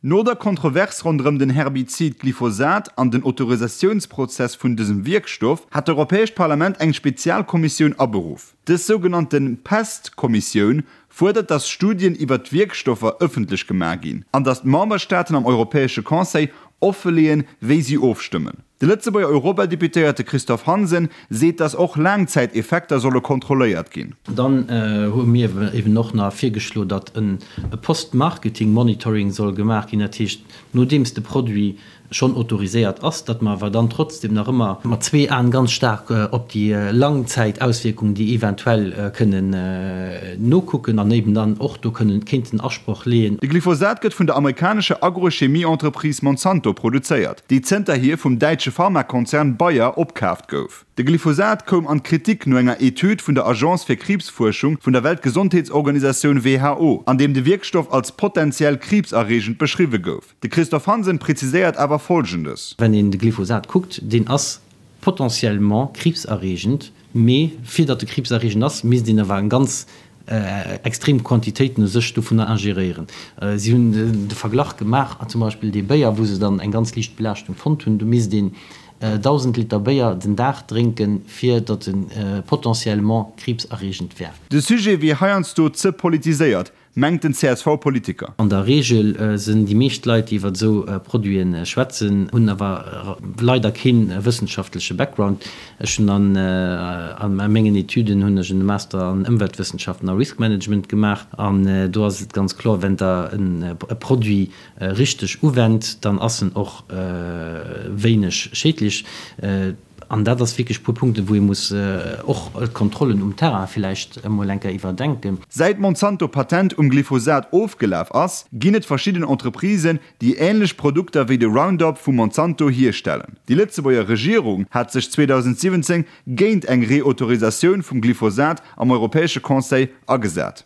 No der Kontrovers ronderëm den Herbizid Glyphosat an den Autorisatiounsprozess vun dësem Wierkstoff hat d'Europäescht Parlament eng Spezialkommissioun aberuff. Dës sougenannte PEST-Kommissioun fuerdert, datt Studien iwwer d'Wierkstoffer ëffentlech gemaach ginn an datt d'Memberstaaten am Europäesche Conseil offeleeën, wéi si ofstëmmen. De Lëtzebuerger Europadeputéierte Christophe Hansen seet, datt och Laangzäiteffekter solle kontrolléiert ginn. Dann hu mir eben och nach virgeschlo, datt e Post-Marketing-Monitoring soll gemaach ginn, dat heescht, nodeems de Produit schonn autoriséiert ass, datt mer awer dann trotzdem nach ëmmer mat zwee Aen ganz staark op déi Langzäitauswierkungen, déi eventuell kënnen, nokucken an eben dann och do kënnen kéinten Asproch leeën. De Glyphosat gëtt vun der amerikanescher Agrochemie-Entreprise Monsanto produzéiert, déi zënterhier vum däitsche Pharmakonzern Bayer opkaaft gouf. De Glyphosat koum an d'Kritik no enger Etüd vun der Agence fir Kriibsfuerschung vun der Weltgesondheetsorganisatioun WHO, an deem de Wierkstoff als potentiell kriibserreegend beschriwwe gouf. De Christophe Hansen präziséiert awer Folgendes. Wenn een de Glyphosat kuckt, deen ass potentiellement kriibserreegend, mee fir datt e kriibserreegend ass, misst een awer eng ganz extrem Quantitéiten u sech dovunner ingeréieren. Si hunn de Verglach gemaach, zum Beispill dee Béier, wou se dann eng ganz liicht Belaaschtung fonnt hunn, do misst een 1.000 Liter Béier den Dag drénken, fir datt e potentiellement kriibserreegend wär. De Sujet wier heiansdo ze politiséiert, mengt den CSV-Politiker. An der Reegel sinn déi meescht Leit, déi iwwer esou Produite schwätzen, hunn awer leider kee wëssenschaftleche Background. Ech hunn an a mengen Etüden hunn ech en Master an Ëmweltwëssenschaften a Risk Management gemaach an do ass et ganz kloer, wenn Der e Produit richteg uwennt, dann ass en och wéineg schädlech. An dat ass wierklech e puer Punkten, wou ee muss och d'Kontrollen um Terrain villäicht emol eng Kéier iwwerdenken. Säit d'Monsanto Patent um Glyphosat ofgelaf ass, ginn et verschidden Entreprisen, déi änlech Produkter wéi de Roundup vu Monsanto hierstellen. Déi Lëtzebuerger Regierung hat sech 2017 géint eng Reautorisatioun vum Glyphosat am Europäesche Conseil agesat.